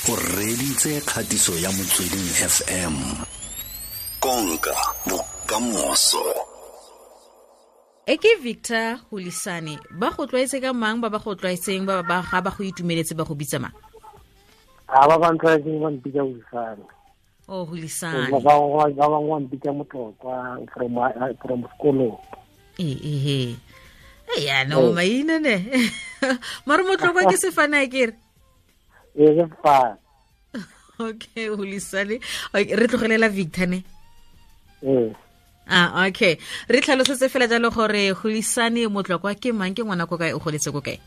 O reditse kgatiso ya Motsweding FM. Konka bokamoso. E ke Victor Hulisane, ba go tlwaetse ka mang, ba ba go tlwaetseng, ba ba ga ba go itumeletse ba go bitsa mang? A ba ba ntlwaetseng ba mpitsa Hulisane. Oh, Hulisane. Ba bangwe ba bangwe ba mpitsa Motlokwa from sekolong. Ee, ee. E ya no maina ne. Mare Motlokwa ke sefane a kere. Ee, ke sefane. Okay, Hulisane. Okay, re tlogelela Victor ne. Ee. Ah, okay. Re tlhalosetse fela jalo gore Hulisane Motlokwa ke mang, ke ngwana ko kae, o goletse ko kae?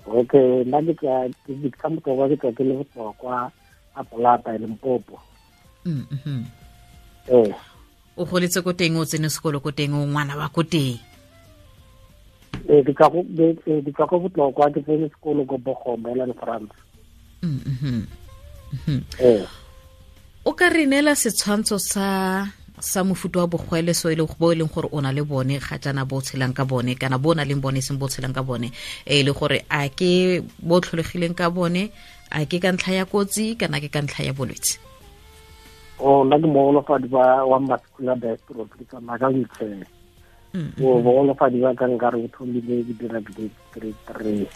Okay, nna ke tla ke Victor Motlokwa, ke tla ke le Botlokwa a Polata e Limpopo. Ee. O goletse ko teng, o tsene sekolo ko teng, o ngwana wa ko teng? Ee, ke tswa ko Botlokwa, ke tsene sekolo ko Bogombe, Ellen France. Ee. O ka re neela setshwantsho sa mofuta wa bogwele so e leng bo e leng gore o na le bone ga jaana, bo tshelang ka bone, kana bo na leng bone seng bo tshelang ka bone, e le gore a ke bo tlholegileng ka bone, a ke ka ntlha ya kotsi kana ke ka ntlha ya bolwetse? O nna ke mogolofadi wa muscular dystrophy, ke tsamaya ka wheelchair. O bogolofadi ba ka nkare bo thomile ke dira grade 3.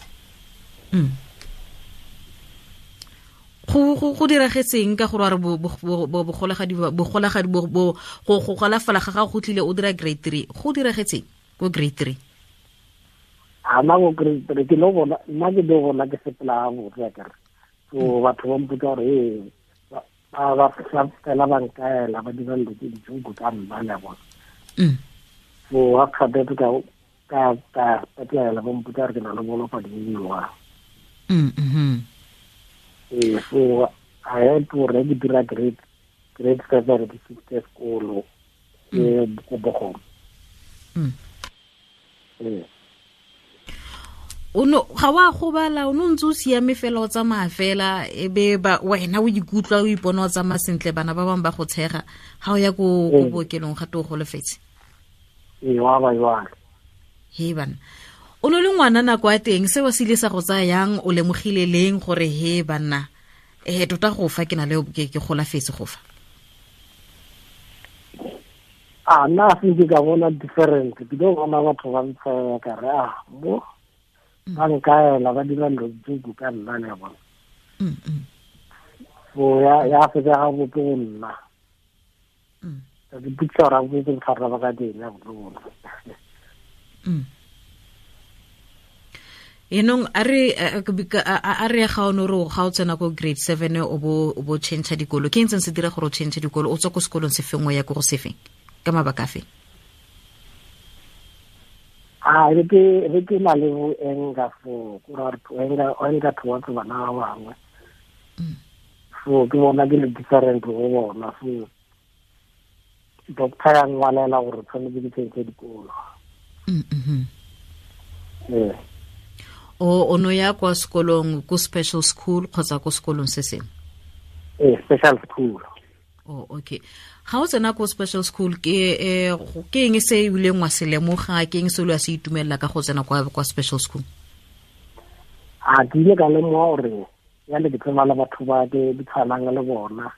Go diragetseng ka gore wa re bogolagadi bogolagadi bo, bo, go, go golafala ga gago go tlile o dira grade 3, go diragetseng ko grade 3? A nna go grade 3 ke lo bona, nna ke lo bona ke sepela ga botse akere. So batho ba mpotsa gore ee, ba fela ba nkaela, ba dira dilo tse di joke ka nna le bona. So ha kgapetse ka petlele, ba mpotsa gore ke na le bolofadi bo bo jwang. Ee, so I had to already dira grade 7 ke fitlhe sekolo ke ko Bogong. Ee. O no ga wa gobala, o no ntse o siame fela, o tsamaya fela, e be ba wena o ikutlwa o ipona o tsamaya sentle, bana ba bangwe ba go tshega ga o ya ko bookelong ga te o golofetse. Ee, wa ba jwalo. He bana, o no le ngwana nako ya teng, seo se ile sa go tsaya yang, o lemogile leng gore he banna, tota go fa ke na le ke golafetse go fa? A nna se ke ka bona different, ke tlo bona batho ba ntshega ka re, ah, mo ba nkaela, ba dira dilo tse ka nna le bona. So ya fetsa ga botse go nna. Ka ke ipotsa gore a boetse bothata ba ka teng ya botlhoko. Enong a re, a re ga o no re ga o tsena ko grade 7 o bo change dikolo, ke eng se dira gore o change dikolo, o tswa ko sekolong se feng o ya ko go se feng, ka mabaka afe? A re ke, re ke na le bo anger for, ko ra re anger, anger towards bana ba bangwe. So ke bona ke le different go bona, so doctor ya ngwalela gore tshwanetse ke change dikolo. Ee. O no ya kwa sekolong, ko special school kgotsa ko sekolong se sengwe? Ee, special school. Oh, okay. Ga o tsena ko special school, ke eng se o ileng wa se lemoga, ke eng se o ileng wa se itumelela ka go tsena kwa special school? A ke ile ka lemoga gore ya le ke tsena le batho ba ke di tshwanang le bona.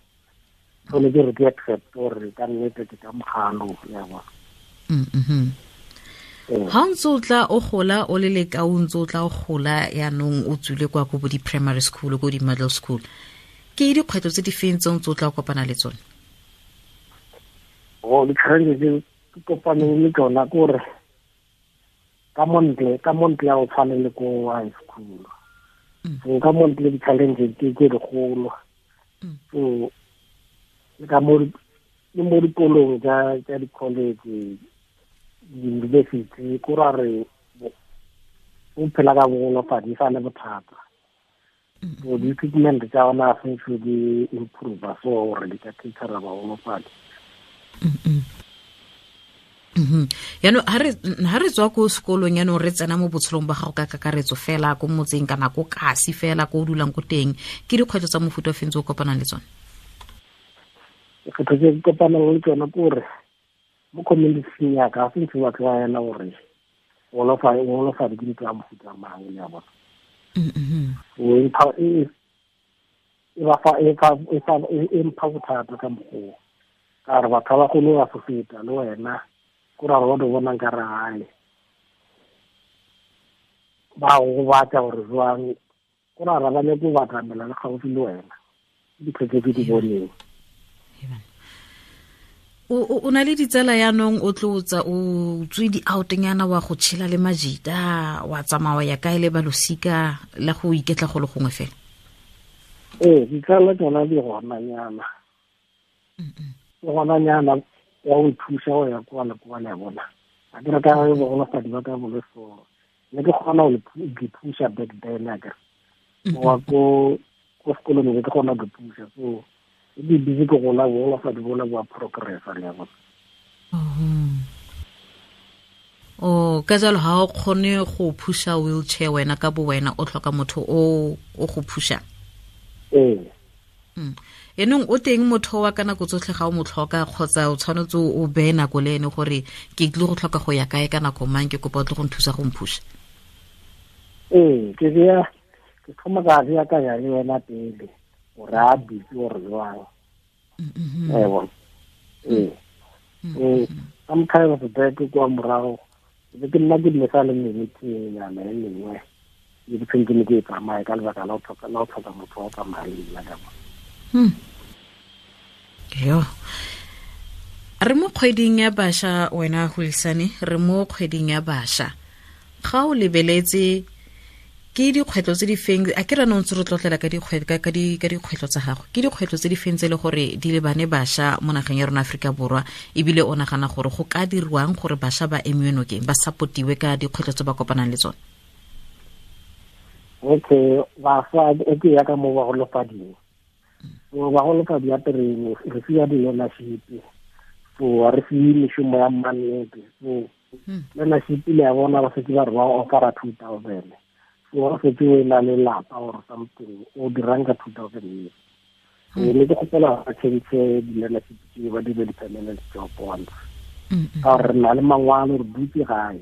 So le ke re ke accept gore ka nnete ke ka mogalo ya bona. Ee. Ha o ntse o tla o gola, o le leka, o ntse o tla o gola yaanong o tswile kwa ko bo di-primary school, ko di-middle school, ke dikgwetlho tse di feng tse o ntse o tla o kopana le tsone? Oh, di-challenge tse ke kopaneng le tsona ke gore ka montle ha o tshwane le ko high school. So ka montle di-challenge ke tse dikgolo. So le ka mo, le mo dikolong tsa di-college, di-university, ko ra re o phela ka bogolofadi e sa le bothata. So di-equipment tsa ona ga se di improve, so gore di ka catera bagolofadi. Yaanong ha re tswa ko sekolong, yaanong re tsena mo botshelong ba gago ka kakaretso fela, ko motseng kana ko kasi fela, ko o dulang ko teng, ke dikgwetlho tsa mofuta o feng tse o kopanang le tsone? Dikgwetlho tse ke kopanang le tsone ke gore mo community ya ka, ga se ntse ba tlwaela gore golofadi ke ntho ya mofuta mang, le ya bona. So, E ba fa e fa e fa e mpha bothata ka mokgwa ka re batho ba bagolo ba fofeta le wena ko ra gore ba bonang ka re gae ba go batla gore jwang ko ra ba nyako go batamela le gaufi le wena dikgwetlho tse ke di boneng. O na le ditsala yaanong o tlotsa o tswe di-outnyana wa go tshela le majita wa tsamaya ya kae le balosika la go iketla go le gongwe fela? Ee, ditsala tsona di gonanyana di gonanyana wa go thusa go ya kwa le kwa le ya bona a ke re ka bogolofadi ba ka bole so ne ke kgona go di thusa back then a kere wa ko sekolong ne ke kgona go thusa so e di busy ke gola bogolofadi bola bo a progressa le ya bona. O ka jalo ga o kgone go phusha wheelchair wena ka bo wena, o tlhoka motho o go phusha. Ee. Enong o teng motho wa ka nako tsotlhe ga o mo tlhoka kgotsa o tshwanetse o beye nako le ene gore ke tlile go tlhoka go ya kae ka nako mang, ke kopa o tle go nthusa go mphusha? Ee, ke beya ke thoma ka beakanya le wena pele gore a busy gore jwang. Ee, ee, sometimes back kwa morago be ke nna ke mesa le meeting-nyana e mengwe e ke tshwanetse ne ke e tsamaye ka lebaka la go tlhoka motho wa go tsamaya le nna ka bona. Yo re mo kgweding ya bašwa wena Hulisani, re mo kgweding ya bašwa, ga o lebeletse ke dikgwetlho tse di feng a ke rano ntse re tlotlela ka dikgwetlho tsa gago, ke dikgwetlho tse di feng tse e le gore di lebane bašwa mo nageng ya rona Aforika Borwa, ebile o nagana gore go ka dirwang gore bašwa ba emiwe nokeng, ba supportiwe ka dikgwetlho tse ba kopanang le tsone? Okay, bašwa e ke ya ka mo bagolofading. So bagolofadi ya terene re fiwa di-learnership, so re fiwe mešomo ya mannete. So learnership le ya bona ba setse ba re ba offera 2000. So ba setse o na le lapa or something o dirang ka 2000 years. So ne ke kgopela ba change di-learnership tse ba dire di-permanent job once. Ka gore re na le mangwalo re dutse gae,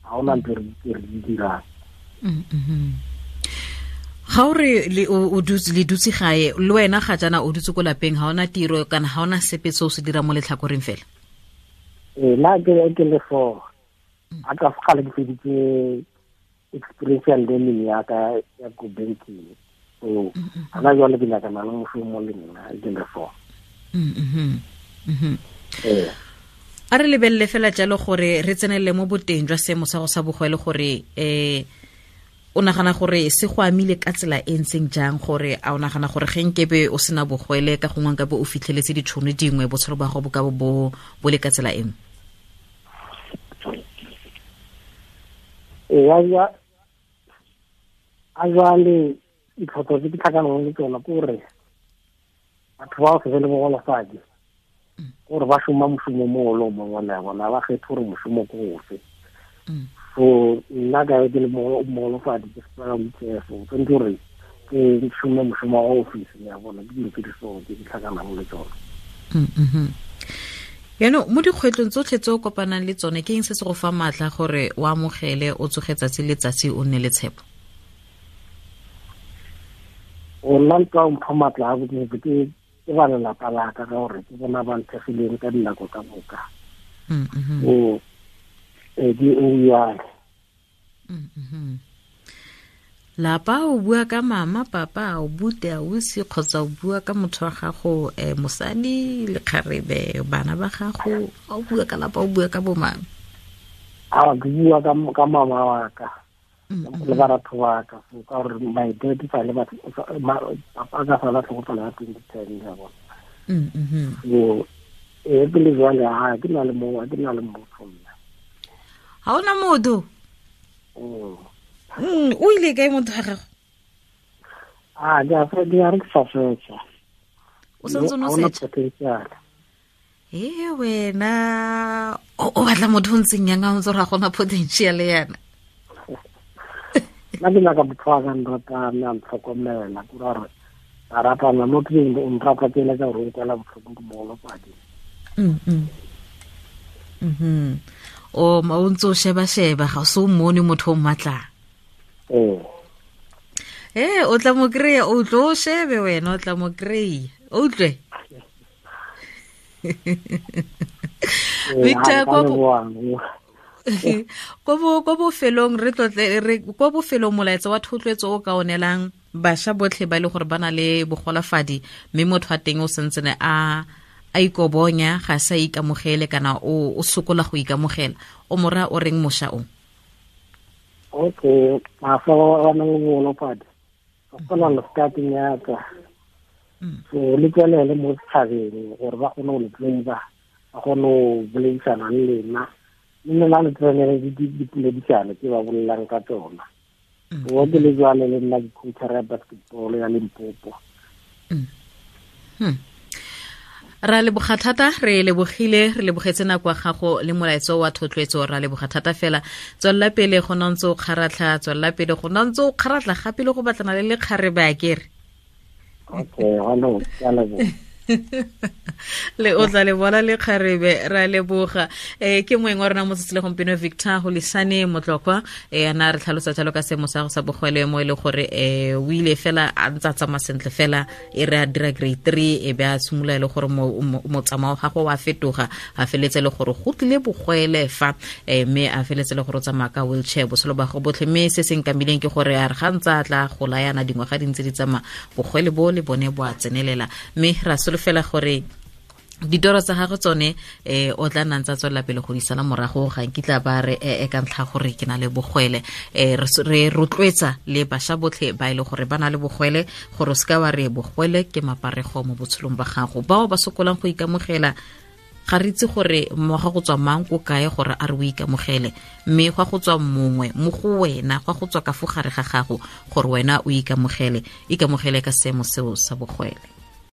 ga ona ntho re di dirang. Ga o re o dutse le dutse gae le wena ga jana o dutse ko lapeng, ga ona tiro kana ga ona sepe se o se dira mo letlhakoreng fela? Ee, nna ke le so a ka gale ke feditse experiential learning ya ka ya ko banking. So ana jwale ke nyakana le mošomo le nna ke le so. Ee. A re lebelele fela jalo gore re tsenelele mo boteng jwa seemo sa go sa bogwele gore o nagana gore se go amile ka tsela e ntseng jang, gore a o nagana gore ge nkebe o sena bogwele ka gongwe nkabe o fitlheletse ditšhono dingwe botshelo ba gago bo ka bo bo le ka tsela e nngwe? Ee, a jwale ditlhopho tse ke tlhakanang le tsona ke gore batho ba go se be le bogolofadi gore ba šoma mošomo mo le o mongwe le bona ba kgethe gore mošomo ke ofe. So nna ka ke le mogolofadi ke sepela wheelchair, so tshwanetse gore ke šome mošomo wa office ya bona, ke dilo tse di so tse di tlhakanang le tsona. Yaanong mo dikgwetlhong tsotlhe tse o kopanang le tsone, ke eng se se go fa maatla gore o amogele o tsoge tsatsi le tsatsi o nne le tshepo? O nna ntwa mpha maatla a botse ke ba lelapa la ka ka gore ke bona ba nthegileng ka dinako ka moka. O di o jalo. Lapa o bua ka mama, papa, o bute, ausi, kgotsa o bua ka motho wa gago, mosadi, lekgarebe, bana ba gago, o bua ka lapa, o bua ka bo mang? A ke bua ka mama wa ka le baratho ba ka, so ka gore my dad fa le batho papa ka fa la tlhokofala ka 2010 ya bona. So e ke le jwale ha ke na le mo, ke na le motho nna. Ha ona motho? O ile kae motho wa gago? A ke a ke a re ke sa fetsa. O santse o no setsa? E wena o batla motho o ntseng yang a ntse ra gona potential yana. Nna ke nyaka motho wa ka nratang, a ntlhokomela, ke gore a ratana mo ke o nrata ke eletsa gore o nkwela botlhoko ke mogolofadi. O ma o ntse o sheba-sheba ga o se o mmone motho o mmatlang. Ee. E o tla mo kry-a, o tlo o shebe wena, o tla mo kry-a, o utlwe. Victor, ko bofelong re tlotle re ko bofelong molaetsa wa thotloetso o ka onelang bašwa botlhe ba e le gore ba na le bogolafadi, mme motho wa teng o sentsene a ikobonya, ga sa ikamogele kana o sokola go ikamogela, o mora o reng mosha o? Okay, bašwa ba ba nang le bogolofadi ba kgona le starting ya ka, so le tswelele mo setšhabeng gore ba kgone go le tseba, ba kgone go boledisana le lena, mme lena le tsenele dipoledisano tse ba bolelang ka tsona. Wa ke le jwale le nna ke coach ya basketball ya Limpopo. Ra leboga thata, re lebogile, re lebogetse nako ya gago le molaetso wa thotloetso, ra leboga thata fela. Tswelela pele go nna ntse o kgaratlha, tswelela pele go nna ntse o kgaratlha gape le go batlana le lekgarebe a kere. Okay, hello, ke a leboga. Le o tla le bona lekgarebe, ra leboga. Ke moeng wa rona mo tsatsi le gompieno, Victor Holisane Motlokwa, ana re tlhalosa jalo ka seemo sa go sa bogwele mo e le gore o ile fela a ntse a tsamaya sentle fela, e re a dira grade 3 e be a simolola e le gore motsamao wa gagwe wa fetoga, a feletse le gore go tlile bogwele fa, mme a feletse le gore o tsamaya ka wheelchair botshelo ba gagwe botlhe. Mme se se nkamileng ke gore a re ga ntse a tla gola yana dingwaga di ntse di tsamaya, bogwele bo le bone bo a tsenelela, mme ra solofela gore ditoro tsa gagwe tsone o tla nna ntse a tswelela pele go di sala morago, ga nkitla ba re ka ntlha gore ke na le bogwele. Re rotloetsa le bašwa botlhe ba e le gore ba na le bogwele gore o seka wa re bogwele ke maparego mo botshelong ba gago. Bao ba sokolang go ikamogela, ga re itse gore mmoga go tswa mang ko kae gore a re o ikamogele, mme gwa go tswa mongwe mo go wena, gwa go tswa ka fo gare ga gago gore wena o ikamogele, ikamogele ka seemo seo sa bogwele.